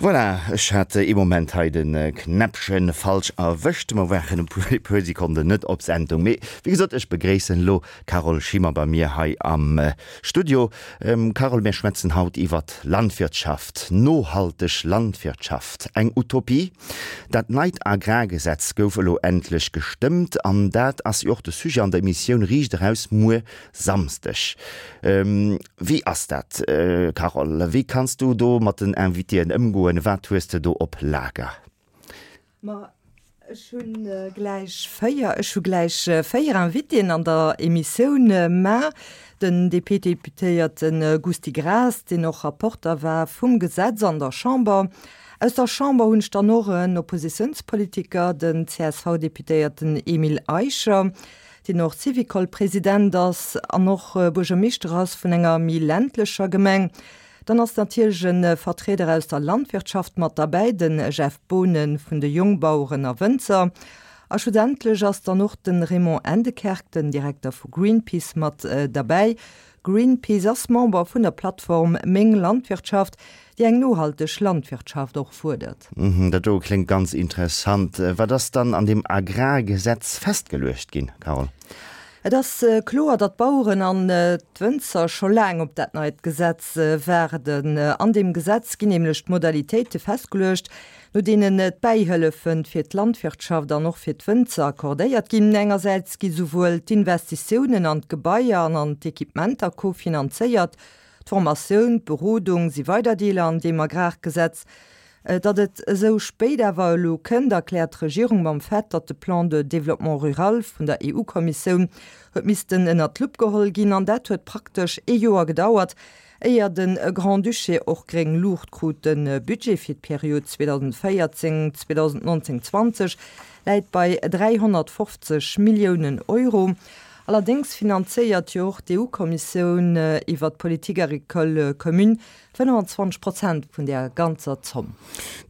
Voilà, ech hat ee Moment hei de Knäppchen falsch erwëscht. Mer waren e puer Sekonden net op Sendung. Mee wéi gesot, ech begréissen elo d'Carole Schimmer bei mir hei am Studio. Carole, mir schwätzen haut iwwert Landwirtschaft, nohalteg Landwirtschaft. Eng Utopie? Dat neit Agrargesetz gouf elo endlech gestëmmt an dat ass jo och de Sujet an der Emissioun Riicht eraus muer Samsdeg. Wéi ass dat, Carole? Wéi kanns du do mat den Invitéen ëmgoen? Wat hues de do op Lager? Ma ech hu gläich 4, ech hu gläich 4 Invitéen an der Emissioun mar. Den DP-Deputéierte Gusty Graas, deen och Rapporter war vum Gesetz an der Chamber. Aus der Chamber hunn ech dann och en Oppositiounspolitiker, den CSV-Deputéierten Emile Eicher. deen och Syvicol-President ass an och Buergermeeschter ass vun enger méi ländlecher Gemeng. Dann ass natierlech e Vertrieder aus der Landwirtschaft mat derbäi, de Jeff Boonen vun de Jongbaueren a Wënzer. A schlussendlech ass dann och de Raymond Endekerk, den Direkter vu Greenpeace, mat derbäi. Greenpeace ass Member vun der Plattform Meng Landwirtschaft, déi eng nohalteg Landwirtschaft och fuerdert. Dat do kléngt ganz interessant. Wat ass dann an deem Agrargesetz festgeluecht ginn, Carole? Et ass kloer, datt d'Baueren an d'Wënzer scho laang op dat neit Gesetz waarden. An deem Gesetz ginn nämlech d'Modalitéite festgeluecht, no deenen d'Bäihëllefe fir d'Landwirtschaft an och fir d'Wënzer accordéiert ginn. Engersäits gi souwuel d'Investitiounen an d'Gebaier an an d'Equipementer kofinanzéiert, D'Formatioun, d'Berodung si weider Deeler an deem Agrargesetz. Datt et esou spéit awer elo kënnt, erkläert d'Regierung mam Fait, datt de Plan de développement rural vun der EU-Kommissioun huet missten ënnert d'Lupp geholl ginn. An dat huet praktesch ee Joer gedauert, éier de Grand-Duché och gréng Luucht krut. De Budget fir d'Period 2014, 2019, 20 läit bei 350 Milliounen Euro. Allerdéngs finanzéiert jo och d'EU-Kommissioun iwwer d'Politique agricole commune 25 Prozent vun där ganzer Zomm.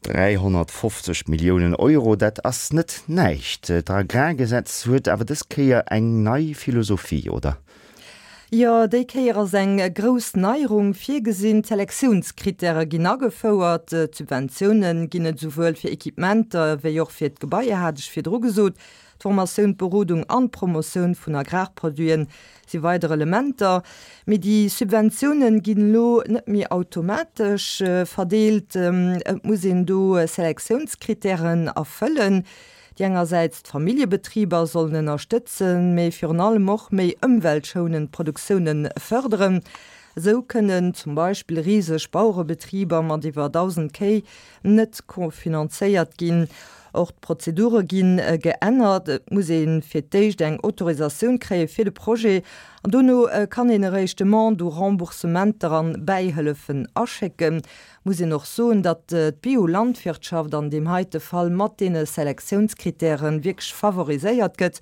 350 Milliounen Euro, dat ass net näischt. D'Agrargesetz huet awer dës Kéier eng nei Philosophie, oder? Jo, déi Kéier ass eng grouss Neierung virgesinn. D'Selektiounskrittäre ginn agefouert. D'Subventioune ginn et esouwuel fir Equipementer wéi och fir d'Gebaier, hat ech virdru gesot. D'Formatioun, d'Berodung an d'Promotioun vun Agrarproduiten si weider Elementer. Mee déi Subventiounen ginn elo net méi automatesch verdeelt. Et muss een do Selektiounskrittären erfëllen, déi engersäits d'Familljebetriber sollen ënnerstëtzen, mee virun allem och méi ëmweltschounend Produktioune fërderen. Esou kënnen zum Beispill riseg Bauerebetriber mat iwwer 1.000 Kéi net kofinanzéiert ginn. Och d'Prozedure gi geännert. Et muss ee fir d'éischt eng Autorisatioun kréie fir de Projet an dono kann een eréischt Demande u Remboursementer an Bäihëllefen aschécken. Muss een och soen, datt d'Biolandwirtschaft an deem heite Fall mat deene Selektiounskrittäre wierklech favoriséiert gëtt.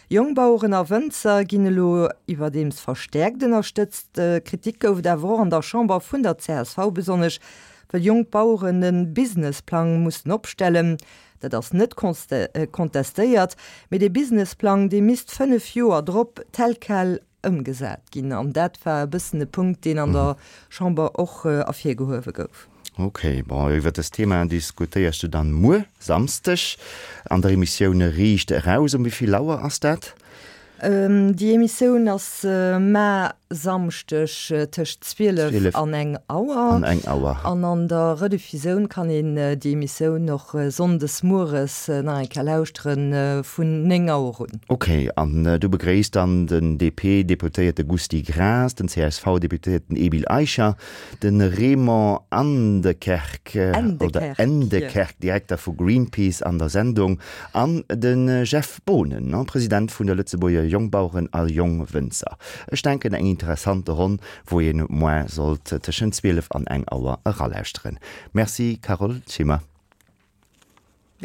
Jongbaueren a Wënzer ginn elo iwwerdeems verstäerkt ënnerstëtzt. Kritik gouf et awer och an der Chamber vun der csv, besonnesch Well jonk Baueren e Businessplang mussen opstellen, dat ass net contestéiert, mee dee Businessplang, dee misst 5 Joer drop tel quel ëmgesat ginn. An dat war e bëssen e Punkt, deen an der Chamber och ervirgehuewe gouf. Ok, bon, iwwer dëst Thema diskutéiers du dann muer Samsdeg an der Emissioun Riicht eraus. Um wéi vill Auer ass dat? Déi Emissioun ass mar Samschdeg tëscht 12 an eng Auer. An eng Auer. An an der Rediffusioun kann een déi Emissioun och Sonndes mueres nach eng Kéier lauschteren, vun 9 Auer un. Ok, an du begréisst dann den DP-Deputéierte Gusty Graas, den CSV-Deputéierten Emile Eicher, de Raymond Andekerk, oder Endekerk, Direkter vu Greenpeace an der Sendung, an de Jeff Boonen, President vun der Lëtzebuerger Jongbaueren a Jongwënzer. Ech denken eng interessante Ronn, wou een moin sollt tëschent 12 an eng Auer eralauschteren. Merci Carole Schimmer.